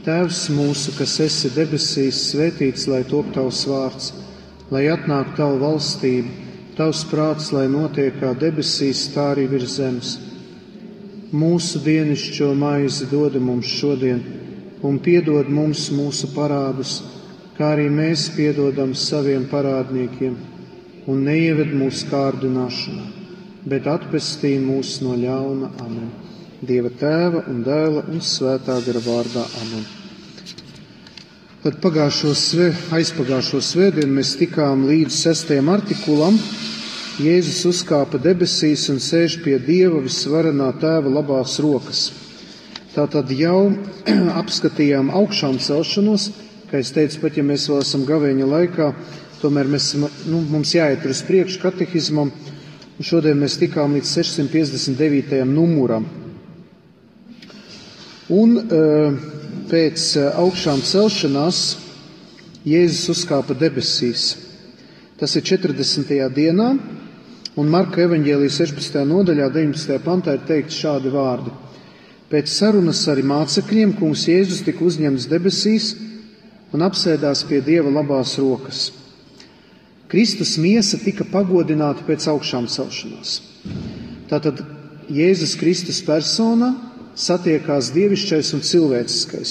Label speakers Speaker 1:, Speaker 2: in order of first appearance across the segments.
Speaker 1: Tēvs mūsu, kas esi debesīs, svētīts, lai top tavs vārds, lai atnāk tava valstība, tavs prāts, lai notiek kā debesīs, tā arī virs zemes. Mūsu dienascho maizi dod mums šodien, un piedod mums mūsu parādus, kā arī mēs piedodam saviem parādniekiem, un neieved mūsu kārdināšanā, bet atpestī mūs no ļauna. Amen. Dieva Tēva un Dēla un Svētā gara vārdā. Amen. Tad aizpagājušo svētdienu mēs tikām līdz 6. artikulam. Jēzus uzkāpa debesīs un sēž pie Dieva visvarenā Tēva labās rokas. Tātad jau apskatījām augšām celšanos, kā es teicu, pat ja mēs vēl esam gavēņa laikā, tomēr mums jāiet uz priekšu katehismam, un šodien mēs tikām līdz 659. numuram. Un pēc augšām celšanās Jēzus uzkāpa debesīs. Tas ir 40. dienā, un Marka evaņģēlija 16. nodaļā 19. pantā ir teikt šādi vārdi. Pēc sarunas ar mācekļiem kungs Jēzus tika uzņemts debesīs un apsēdās pie Dieva labās rokas. Kristus miesa tika pagodināta pēc augšām celšanās. Tātad Jēzus Kristus persona satiekās dievišķais un cilvēciskais.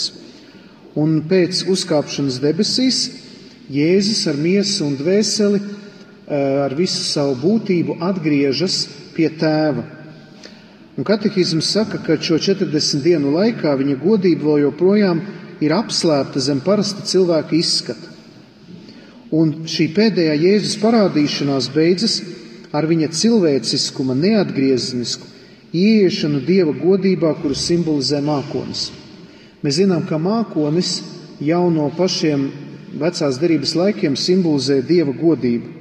Speaker 1: Un pēc uzkāpšanas debesīs Jēzus ar miesu un dvēseli, ar visu savu būtību atgriežas pie Tēva. Un katehisms saka, ka šo 40 dienu laikā viņa godība vēl joprojām ir apslēpta zem parasta cilvēka izskata. Un šī pēdējā Jēzus parādīšanās beidzas ar viņa cilvēciskuma neatgriezenisku ieiešanu Dieva godībā, kuru simbolizē mākonis. Mēs zinām, ka mākonis jau no pašiem vecās derības laikiem simbolizē Dieva godību.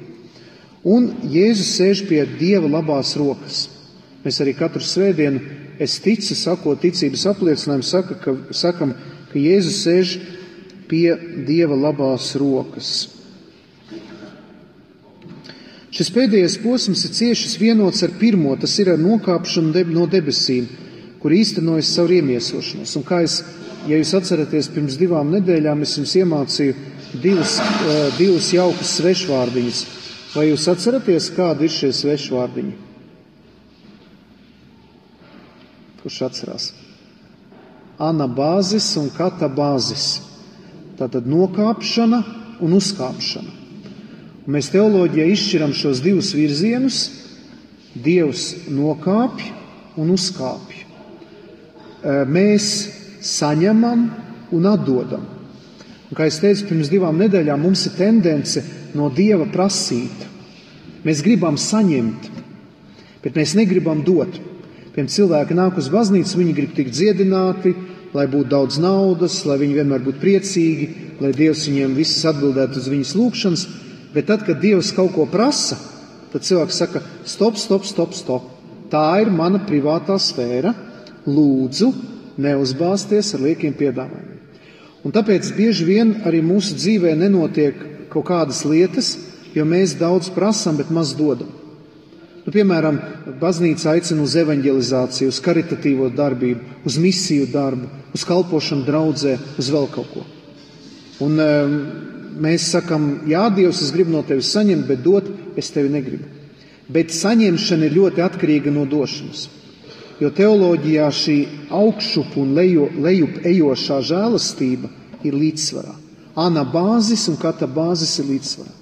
Speaker 1: Un Jēzus sēž pie Dieva labās rokas. Mēs arī katru svētdienu, es ticu, sakot ticības apliecinājumu, sakam, ka Jēzus sēž pie Dieva labās rokas. Šis pēdējais posms ir cieši vienots ar pirmo, tas ir ar nokāpšanu no debesīm, kur īstenojas savu iemiesošanos. Un kā ja jūs atceraties, pirms 2 nedēļām es jums iemācīju divus jaukus svešvārdiņus. Vai jūs atceraties, kādi ir šie svešvārdiņi? Kurš atcerās? Anabāzis un katabāzis. Tātad nokāpšana un uzkāpšana. Un mēs teoloģijā izšķiram šos divus virzienus. Dievs nokāpj un uzkāpj. Mēs saņemam un atdodam. Un, kā es teicu, pirms 2 nedēļām mums ir tendence no Dieva prasīt. Mēs gribam saņemt, bet mēs negribam dot. Piemēram, cilvēki nāk uz baznīcu, viņi grib tikt dziedināti, lai būtu daudz naudas, lai viņi vienmēr būtu priecīgi, lai Dievs viņiem visas atbildētu uz viņas lūgšanas. Bet tad, kad Dievs kaut ko prasa, tad cilvēks saka, stop. Tā ir mana privātā sfēra. Lūdzu, neuzbāzties ar liekiem piedāvājumiem. Un tāpēc bieži vien arī mūsu dzīvē nenotiek kaut kādas lietas, jo mēs daudz prasam, bet maz dodam. Piemēram, baznīca aicina uz evanģelizāciju, uz karitatīvo darbību, uz misiju darbu, uz kalpošanu draudzē, uz vēl kaut ko. Un mēs sakam, jā, Dievs, es gribu no tevis saņemt, bet dot es tevi negribu. Bet saņemšana ir ļoti atkarīga no došanas. Jo teoloģijā šī augšup un lejup ejošā žēlastība ir līdzsvarā. Anabāzis un katabāzis ir līdzsvarā.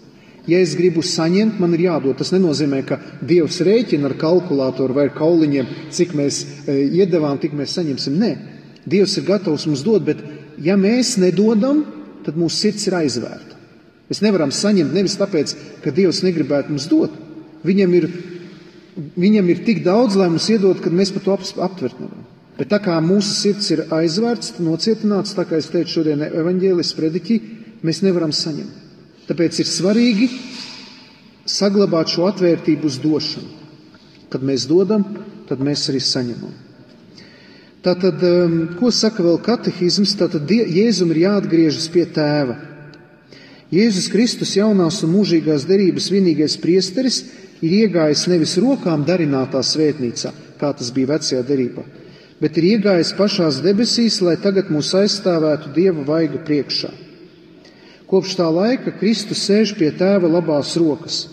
Speaker 1: Ja es gribu saņemt, man ir jādod. Tas nenozīmē, ka Dievs rēķina ar kalkulātoru vai ar kauliņiem, cik mēs iedevām, tik mēs saņemsim. Nē, Dievs ir gatavs mums dot, bet ja mēs nedodam, tad mūsu sirds ir aizvērta. Mēs nevaram saņemt nevis tāpēc, ka Dievs negribētu mums dot. Viņam ir tik daudz, lai mums iedod, kad mēs par to aptvert nevaram. Bet tā kā mūsu sirds ir aizvērts, nocietināts, tā kā es teicu šodien evaņģēlis prediķī, mēs nevaram saņemt. Tāpēc ir svarīgi saglabāt šo atvērtību uz došanu. Kad mēs dodam, tad mēs arī saņemam. Tātad, ko saka vēl katehisms? Tātad Jēzum ir jāatgriežas pie Tēva. Jēzus Kristus jaunās un mūžīgās derības vienīgais priesteris ir iegājis nevis rokām darinātā svētnīcā, kā tas bija vecajā derībā, bet ir iegājis pašās debesīs, lai tagad mūs aizstāvētu Dieva vaiga priekšā. Kopš tā laika Kristus sēž pie Tēva labās rokas,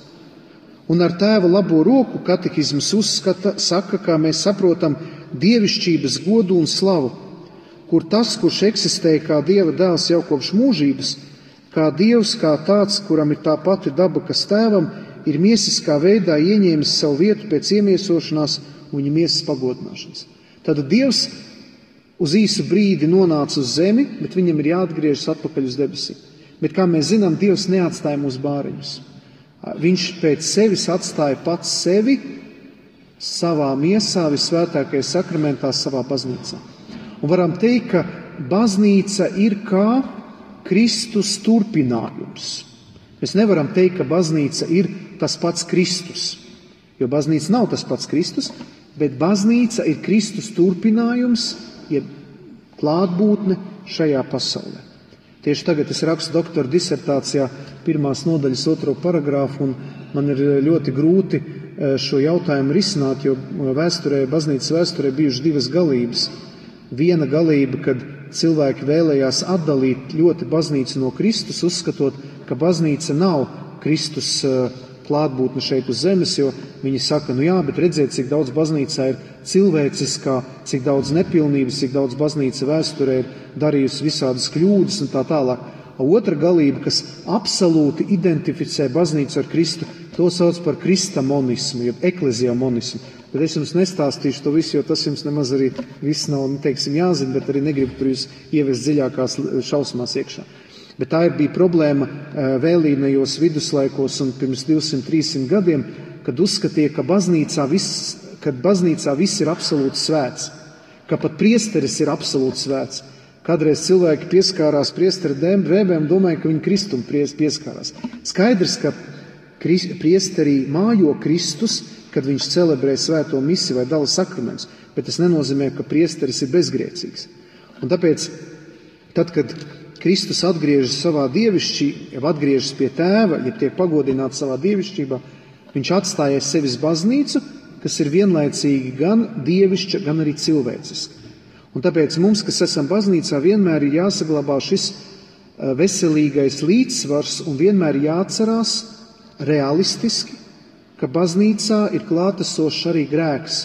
Speaker 1: un ar Tēva labo roku katehisms saka, kā mēs saprotam, dievišķības godu un slavu, kur tas, kurš eksistēja kā Dieva dēls jau kopš mūžības, kā Dievs, kā tāds, kuram ir tā pati daba, kas Tēvam, ir miesiskā veidā ieņēmis savu vietu pēc iemiesošanās un viņa miesas pagodināšanas. Tad Dievs uz īsu brīdi nonāca uz zemi, bet viņam ir jāatgriežas atpakaļ uz debesīm. Bet, kā mēs zinām, Dievs neatstāja mūsu bāriņus. Viņš pēc sevis atstāja pats sevi savā miesā, visvētākajā sakramentā, savā baznīcā. Un varam teikt, ka baznīca ir kā Kristus turpinājums. Mēs nevaram teikt, ka baznīca ir tas pats Kristus, jo baznīca nav tas pats Kristus, bet baznīca ir Kristus turpinājums, jeb klātbūtne šajā pasaulē. Tieši tagad es rakstu doktora disertācijā 1. nodaļas 2. paragrāfu, un man ir ļoti grūti šo jautājumu risināt, jo baznīcas vēsturē bijušas divas galības. Viena galība, kad cilvēki vēlējās atdalīt ļoti baznīcu no Kristus, uzskatot, ka baznīca nav Kristus klātbūtne šeit uz zemes, jo viņi saka, nu jā, bet redziet, cik daudz baznīcā ir cilvēciskā, cik daudz nepilnības, cik daudz baznīca vēsturē ir darījusi visādas kļūdas un tā tālāk. Otra galība, kas absolūti identificē baznīcu ar Kristu, to sauc par kristamonismu, jeb ekleziamonismu. Bet es jums nestāstīšu to visu, jo tas jums nemaz arī viss nav, teiksim, jāzina, bet arī negribu tur jūs ievest dziļākās šausmās iekšā. Bet tā bija problēma vēlīnajos viduslaikos un pirms 200-300 gadiem, kad uzskatīja, ka baznīcā viss ir absolūti svēts, ka pat priesteris ir absolūti svēts. Kādreiz cilvēki pieskārās priestera drēbēm un domāja, ka viņi Kristum pieskārās. Skaidrs, ka priesterī mājo Kristus, kad viņš celebrē svēto misiju vai dala sakramentus, bet tas nenozīmē, ka priesteris ir bezgrēcīgs. Un tāpēc, tad, kad Kristus atgriežas savā atgriežas pie Tēva, ja tiek pagodināts savā dievišķībā, viņš atstāja sevis baznīcu, kas ir vienlaicīgi gan dievišķa, gan arī cilvēciska. Un tāpēc mums, kas esam baznīcā, vienmēr ir jāsaglabā šis veselīgais līdzsvars un vienmēr jāatcerās realistiski, ka baznīcā ir klātesošs arī grēks.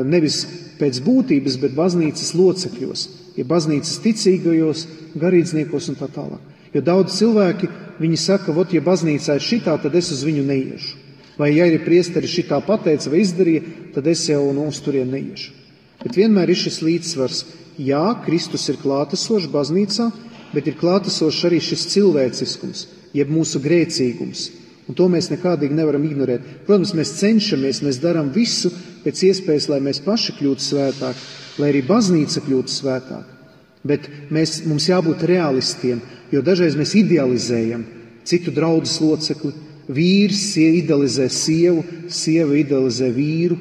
Speaker 1: Nevis pēc būtības, bet baznīcas locekļos, ja baznīcas ticīgajos, garīdzniekos un tā tālāk. Jo daudz cilvēki, viņi saka, ja baznīcā ir šitā, tad es uz viņu neiešu. Vai ja ir priesteri šitā pateica vai izdarīja, tad es jau uz turien neiešu. Bet vienmēr ir šis līdzsvars. Jā, Kristus ir klātesošs baznīcā, bet ir klātesošs arī šis cilvēciskums, jeb mūsu grēcīgums. Un to mēs nekādīgi nevaram ignorēt. Protams, mēs cenšamies, mēs darām visu pēc iespējas, lai mēs paši kļūtu svētāki, lai arī baznīca kļūtu svētāka. Bet mums jābūt realistiem, jo dažreiz mēs idealizējam citu draudzes locekli. Vīrs idealizē sievu, sieva idealizē vīru,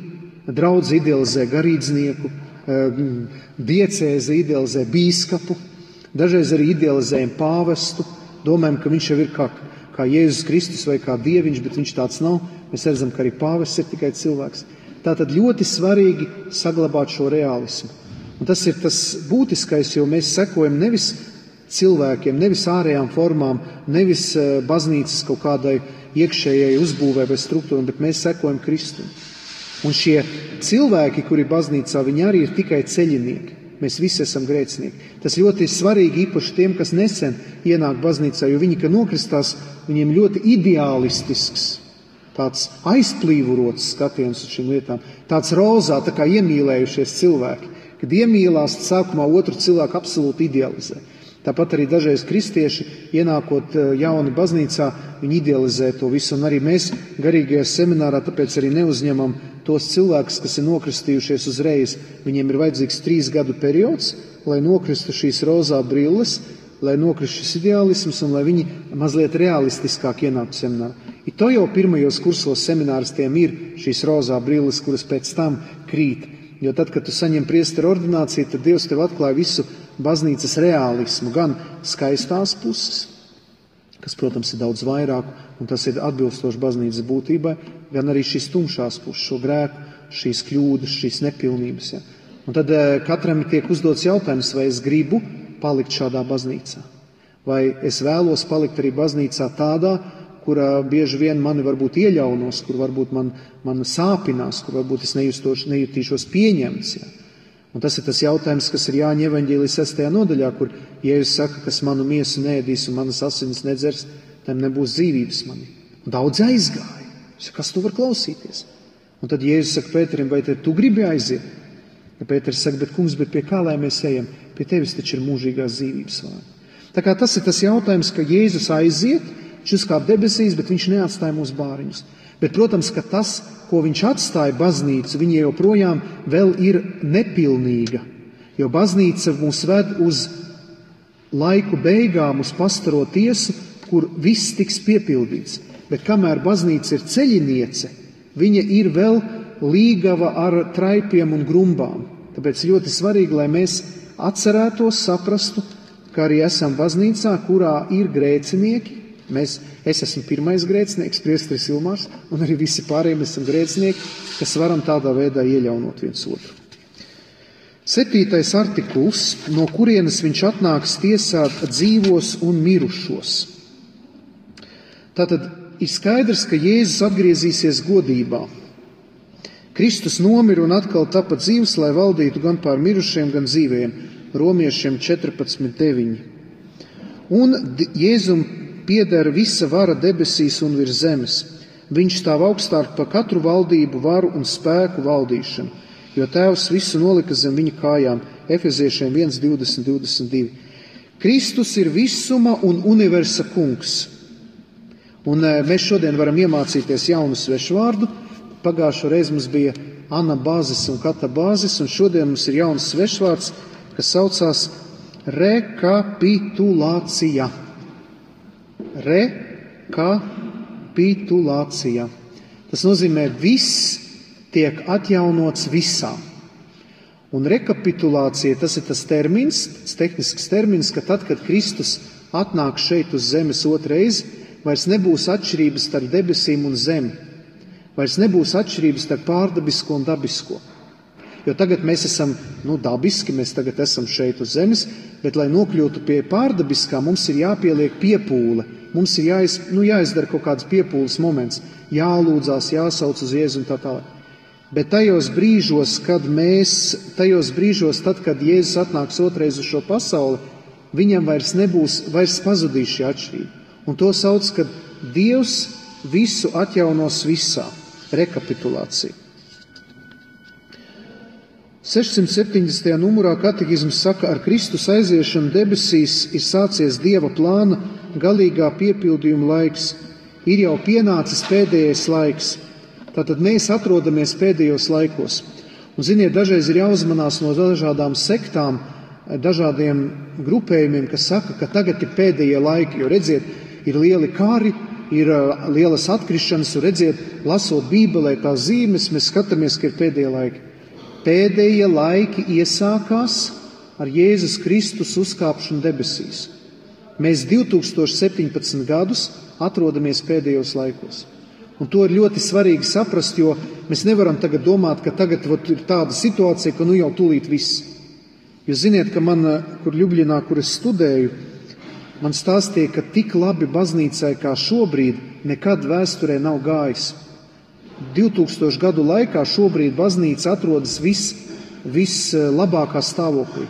Speaker 1: draudze idealizē garīdznieku, diecēze idealizē bīskapu, dažreiz arī idealizējam pāvestu, domājam, ka viņš jau ir kā Jēzus Kristus vai kā dieviņš, bet viņš tāds nav. Mēs redzam, ka arī pāvests ir tikai cilvēks. Tātad ļoti svarīgi saglabāt šo realismu. Un tas ir tas būtiskais, jo mēs sekojam nevis cilvēkiem, nevis ārējām formām, nevis baznīcas kaut kādai iekšējai uzbūvē vai struktūram, bet mēs sekojam Kristum. Un šie cilvēki, kuri baznīcā, viņi arī ir tikai ceļinieki. Mēs visi esam grēcinieki. Tas ļoti svarīgi īpaši tiem, kas nesen ienāk baznīcā, jo viņi, kad nokristās, viņiem ļoti ideālistisks, tāds aizplīvurots skatiens uz šīm lietām, tāds rozā, tā kā iemīlējušies cilvēki, kad iemīlās sākumā otru cilvēku absolūti idealizē. Tāpat arī dažreiz kristieši, ienākot jauni baznīcā, viņi idealizē to visu, un arī mēs garīgajā seminārā tāpēc arī neuzņemam tos cilvēkus, kas ir nokristījušies uzreiz. Viņiem ir vajadzīgs 3 gadu periods, lai nokristu šīs rozā brilles, lai nokristu šis ideālisms un lai viņi mazliet realistiskāk ienāktu seminārā. To jau pirmajos kursos semināristiem ir šīs rozā brilles, kuras pēc tam krīt. Jo tad, kad tu saņem priestera ordināciju, tad Dievs tev atklāja visu baznīcas reālismu, gan skaistās puses, kas, protams, ir daudz vairāk, un tas ir atbilstoši baznīcas būtībai, gan arī šīs tumšās puses, šo grēku, šīs kļūdas, šīs nepilnības. Ja. Un tad katram tiek uzdots jautājums, vai es gribu palikt šādā baznīcā. Vai es vēlos palikt arī baznīcā tādā, kurā bieži vien mani varbūt ieļaunos, kur varbūt man sāpinās, kur varbūt es nejutīšos pieņemts. Ja? Un tas ir tas jautājums, kas ir Jāņa evaņģēlija 6. nodaļā, kur Jēzus saka, kas manu miesu neēdīs un manas asinis nedzers, tam nebūs dzīvības manī. Un daudz aizgāja. Kas tu var klausīties? Un tad Jēzus saka Pēterim, vai tu gribi aiziet? Ja Pēters saka, bet kungs, bet pie kā lai mēs ejam? Pie tevis taču ir mūžīgās dzīvības vārdi. Tā kā tas ir tas jautājums, ka Jēzus aiziet, viņš uzkāp debesīs, bet viņš neatstāja mūsu bāriņus. Bet, protams, ka tas, ko viņš atstāja baznīcu, viņa joprojām vēl ir nepilnīga. Jo baznīca mūs ved uz laiku beigām, uz pastaro tiesu, kur viss tiks piepildīts. Bet kamēr baznīca ir ceļiniece, viņa ir vēl līgava ar traipiem un grumbām. Tāpēc ļoti svarīgi, lai mēs atcerētos, saprastu, ka arī esam baznīcā, kurā ir grēcinieki. Es esmu pirmais grēcinieks, priesteris Ilmārs, un arī visi pārējiem esam grēcinieki, kas varam tādā veidā ieļaunot viens otru. 7. artikuls, no kurienes viņš atnāks tiesāt dzīvos un mirušos. Tātad ir skaidrs, ka Jēzus atgriezīsies godībā. Kristus nomira un atkal tapa dzīvs, lai valdītu gan pār mirušiem, gan dzīvajiem. Romiešiem 14:9. Un Jēzum pieder visa vara debesīs un virs zemes. Viņš stāv augstāk par katru valdību, varu un spēku valdīšanu, jo Tēvs visu nolika zem viņa kājām. Efeziešiem 1:20-22. Kristus ir visuma un universa kungs. Un mēs šodien varam iemācīties jaunu svešu vārdu. Pagājušo reizi mums bija anabāzis un katabāzis, un šodien mums ir jauns svešvārds, kas saucās rekapitulācija. Rekapitulācija. Tas nozīmē, viss tiek atjaunots visā. Un rekapitulācija, tas ir tas termins, tas tehnisks termins, ka tad, kad Kristus atnāk šeit uz zemes otrais, vairs nebūs atšķirības starp debesīm un zemi. Vairs nebūs atšķirības starp pārdabisko un dabisko. Jo tagad mēs esam dabiski, mēs tagad esam šeit uz zemes, bet, lai nokļūtu pie pārdabiskā, mums ir jāpieliek piepūle. Mums ir jāizdara kaut kāds piepūles moments, jālūdzās, jāsauc uz Jēzu un tā tālāk. Bet tajos brīžos, tad, kad Jēzus atnāks otrais uz šo pasauli, viņam vairs pazudīs šī atšķirība. Un to sauc, kad Dievs visu atjaunos visā. Rekapitulācija. 670. numurā katehisms saka, ar Kristus aiziešanu debesīs ir sācies Dieva plāna galīgā piepildījuma laiks. Ir jau pienācis pēdējais laiks. Tātad mēs atrodamies pēdējos laikos. Un, ziniet, dažreiz ir jāuzmanās no dažādām sektām, dažādiem grupējumiem, kas saka, ka tagad ir pēdējie laiki. Jo, redziet, ir lieli kari, ir lielas atkrišanas, un redziet, lasot Bībelē tās zīmes, mēs skatāmies, ka ir pēdējie laiki. Pēdējie laiki iesākās ar Jēzus Kristus uzkāpšanu debesīs. Mēs 2017 gadus atrodamies pēdējos laikos. Un to ir ļoti svarīgi saprast, jo mēs nevaram tagad domāt, ka tagad ir tāda situācija, ka jau tūlīt viss. Jūs ziniet, ka kur Ļubļinā, kur es studēju, man stāstīja, ka tik labi baznīcai kā šobrīd nekad vēsturē nav gājis. 2000 gadu laikā šobrīd baznīca atrodas vislabākā stāvoklī.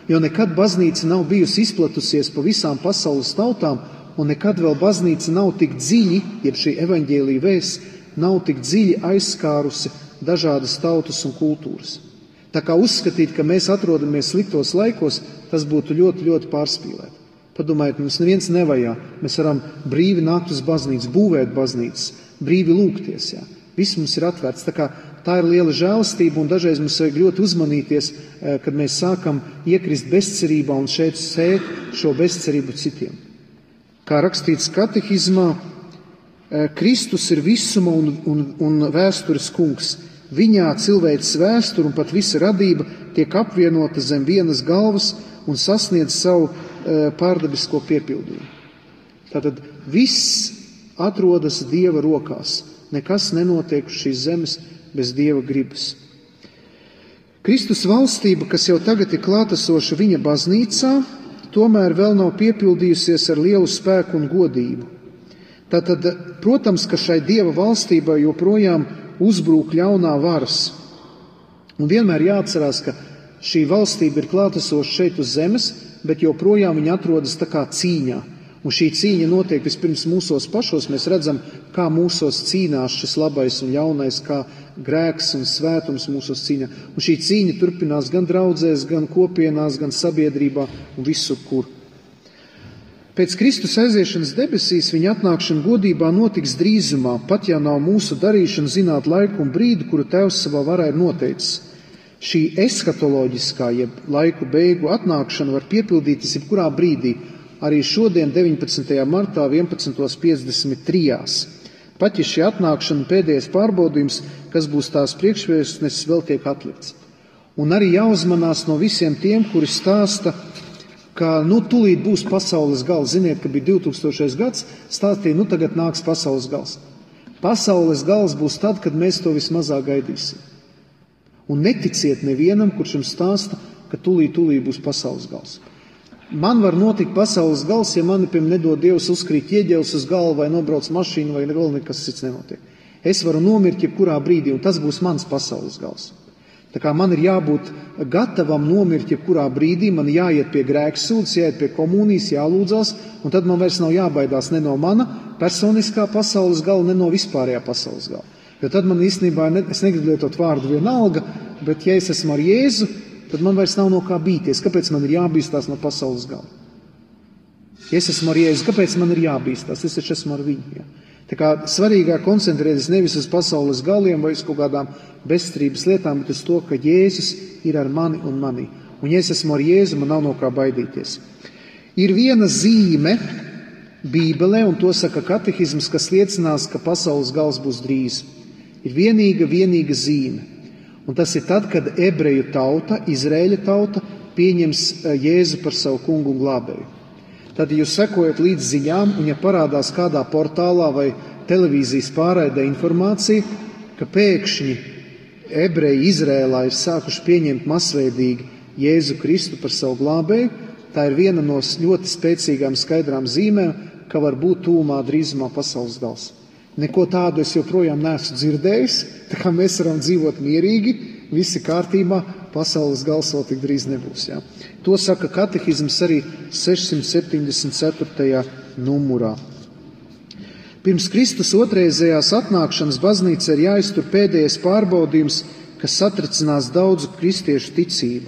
Speaker 1: Jo nekad baznīca nav bijusi izplatusies pa visām pasaules tautām, un nekad vēl baznīca nav tik dziļi, jeb šī evaņģēlija vēsts, nav tik dziļi aizskārusi dažādas tautas un kultūras. Tā kā uzskatīt, ka mēs atrodamies sliktos laikos, tas būtu ļoti, ļoti pārspīlēt. Padomājiet, mums neviens nevajā. Mēs varam brīvi nākt uz baznīcu, būvēt baznīcas, brīvi lūgties. Jā. Viss mums ir atvērts. Tā ir liela žēlastība, un dažreiz mums vajag ļoti uzmanīties, kad mēs sākam iekrist bezcerībā un šeit sēt šo bezcerību citiem. Kā rakstīts katehismā, Kristus ir visuma un vēstures kungs. Viņā cilvēces vēsture un pat visa radība tiek apvienota zem vienas galvas un sasniedz savu pārdabisko piepildījumu. Tātad viss atrodas Dieva rokās. Nekas nenotiek uz šīs zemes bez Dieva gribas. Kristus valstība, kas jau tagad ir klātesoša viņa baznīcā, tomēr vēl nav piepildījusies ar lielu spēku un godību. Tātad, protams, ka šai Dieva valstībai joprojām uzbrūk ļaunā varas. Un vienmēr jāatcerās, ka šī valstība ir klātesoša šeit uz zemes, bet joprojām viņa atrodas tā kā cīņā. Un šī cīņa notiek vispirms mūsos pašos. Mēs redzam, kā mūsos cīnās šis labais un ļaunais, kā grēks un svētums mūsos cīnā. Un šī cīņa turpinās gan draudzēs, gan kopienās, gan sabiedrībā un visur, kur. Pēc Kristus aiziešanas debesīs viņa atnākšana godībā notiks drīzumā, pat ja nav mūsu darīšana zināt laiku un brīdi, kuru Tēvs savā varā ir noteicis. Šī eskatoloģiskā, jeb laiku beigu atnākšana var piepildīties jebkurā brīdī, arī šodien 19. martā 11.53. Pat ja šī atnākšana pēdējais pārbaudījums, kas būs tās priekšvēstnesis, vēl tiek atlikts. Un arī jāuzmanās no visiem tiem, kuri stāsta, ka tūlīt būs pasaules gals. Ziniet, ka bija 2000. gads, stāstīja, tagad nāks pasaules gals. Pasaules gals būs tad, kad mēs to vismazāk gaidīsim. Un neticiet nevienam, kurš jums stāsta, ka tūlīt būs pasaules gals. Man var notikt pasaules gals, ja mani, nedod Dievs, uzkrīt ieģelis uz galvu vai nobrauc mašīnu vai vēl nekas cits nenotiek. Es varu nomirt jebkurā brīdī, un tas būs mans pasaules gals. Tā kā man ir jābūt gatavam nomirt jebkurā brīdī, man jāiet pie grēksūdzes, jāiet pie komunijas, jālūdzās, un tad man vairs nav jābaidās ne no mana personiskā pasaules gala, ne no vispārējā pasaules gala. Jo tad man īstenībā, es negribu lietot vārdu vienalga, bet ja es esmu ar Jēzu, tad man vairs nav no kā bīties. Kāpēc man ir jābīstās no pasaules gala? Ja es esmu ar Jēzu, kāpēc man ir jābīstās? Es taču esmu ar viņu. Ja? Tā kā svarīgāk koncentrēties nevis uz pasaules galiem vai uz kaut kādām bezstrības lietām, bet uz to, ka Jēzus ir ar mani un manī. Un ja es esmu ar Jēzu, man nav no kā baidīties. Ir viena zīme Bībelē, un to saka katehisms, kas liecinās, ka pasaules gals būs drīz. Ir vienīga zīme. Un tas ir tad, kad ebreju tauta, Izraēļa tauta, pieņems Jēzu par savu kungu un glābēju. Tad, ja jūs sekojat līdz ziņām, un ja parādās kādā portālā vai televīzijas pārraidē informācija, ka pēkšņi ebreji Izraēlā ir sākuši pieņemt masveidīgi Jēzu Kristu par savu glābēju, tā ir viena no ļoti spēcīgām skaidrām zīmēm, ka var būt tūmā drīzumā pasaules gals. Neko tādu es joprojām neesmu dzirdējis, tā kā mēs varam dzīvot mierīgi, visi kārtībā, pasaules gals vēl tik drīz nebūs. Ja? To saka katehisms arī 674. numurā. Pirms Kristus otrreizējās atnākšanas baznīca ir jāiztur pēdējais pārbaudījums, kas satricinās daudzu kristiešu ticību.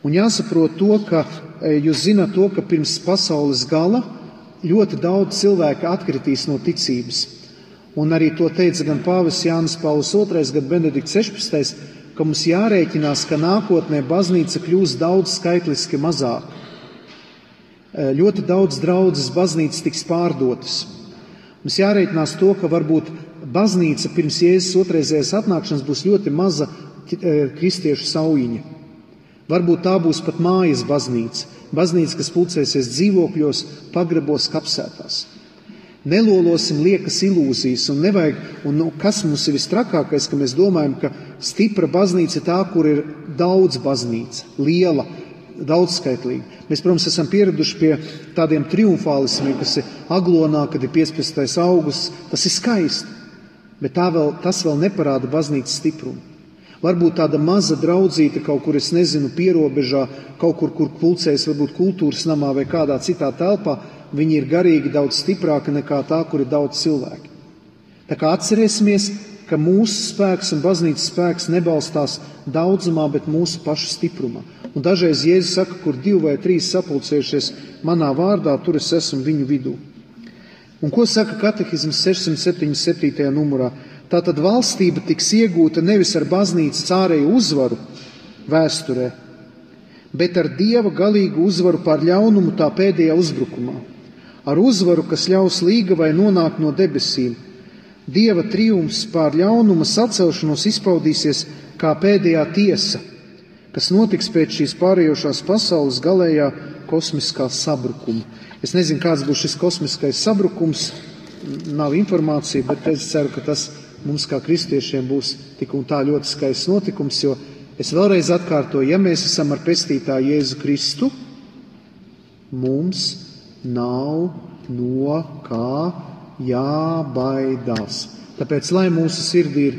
Speaker 1: Un jāsaprot to, ka jūs zināt to, ka pirms pasaules gala ļoti daudz cilvēku atkritīs no ticības. Un arī to teica gan pāvests Jānis Pauls II, gan Benedikts 16, ka mums jārēķinās, ka nākotnē baznīca kļūs daudz skaitliski mazāk. Ļoti daudz draudzes baznīcas tiks pārdotas. Mums jārēķinās to, ka varbūt baznīca pirms Jēzus otrreizējās atnākšanas būs ļoti maza kristiešu saujiņa. Varbūt tā būs pat mājas baznīca. Baznīca, kas pulcēsies dzīvokļos, pagrabos, kapsētās. Nelolosim liekas ilūzijas un nevajag, kas mums ir vistrakākais, ka mēs domājam, ka stipra baznīca ir tā, kur ir daudz baznīca, liela, daudzskaitlīga. Mēs, protams, esam pieraduši pie tādiem triumfālismiem, kas ir Aglonā, kad ir 15. augusts, tas ir skaisti, bet tas vēl neparāda baznīcas stiprumu. Varbūt tāda maza draudzīte kaut kur, es nezinu, pierobežā, kaut kur, kur pulcējas varbūt kultūras namā vai kādā citā telpā, viņi ir garīgi daudz stiprāki nekā tā, kur ir daudz cilvēki. Tā kā atcerēsimies, ka mūsu spēks un baznīcas spēks nebalstās daudzumā, bet mūsu pašu stiprumā. Un dažreiz Jēzus saka, kur 2 vai 3 sapulcējušies manā vārdā, tur es esmu viņu vidū. Un ko saka katehisms 677. numurā? Tātad valstība tiks iegūta nevis ar baznīcas ārēju uzvaru vēsturē, bet ar Dieva galīgu uzvaru pār ļaunumu tā pēdējā uzbrukumā. Ar uzvaru, kas ļaus līgavai nonākt no debesīm. Dieva triumfs pār ļaunuma sacelšanos izpaudīsies kā pēdējā tiesa, kas notiks pēc šīs pārējošās pasaules galējā kosmiskā sabrukuma. Es nezinu, kāds būs šis kosmiskais sabrukums, nav informācija, bet es ceru, ka tas mums kā kristiešiem būs tik un tā ļoti skaists notikums, jo Es vēlreiz atkārtoju, ja mēs esam ar pestītāju Jēzu Kristu, mums nav no kā jābaidās. Tāpēc, lai mūsu sirdī ir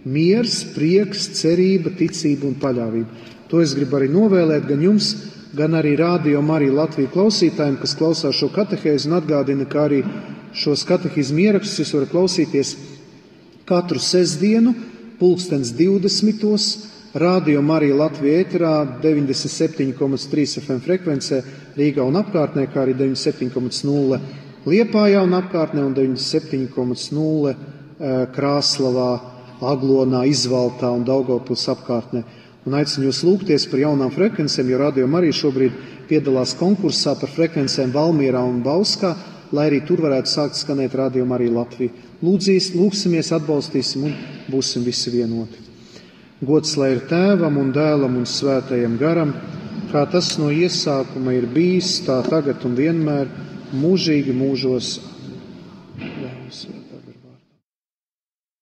Speaker 1: miers, prieks, cerība, ticība un paļāvība. To es gribu arī novēlēt gan jums, gan arī Radio Marija Latvija klausītājiem, kas klausās šo katehēzi, un atgādina, ka arī šos katehizmu ierakstus jūs varat klausīties katru sestdienu, 20:20. Radio Marija Latvija ēterā 97,3 FM frekvencē Rīgā un apkārtnē, kā arī 97,0 Liepājā un apkārtnē un 97,0 Krāslavā, Aglonā, Izvaltā un Daugavpils apkārtnē. Un aicinu jūs lūgties par jaunām frekvencēm, jo Radio Marija šobrīd piedalās konkursā par frekvencēm Valmierā un Bauskā, lai arī tur varētu sākt skanēt Radio Marija Latvija. Lūgsimies, atbalstīsim un būsim visi vienoti. Gods lai ir Tēvam un Dēlam un Svētajam garam, kā tas no iesākuma ir bijis, tā tagad un vienmēr, mūžīgi mūžos. Jā,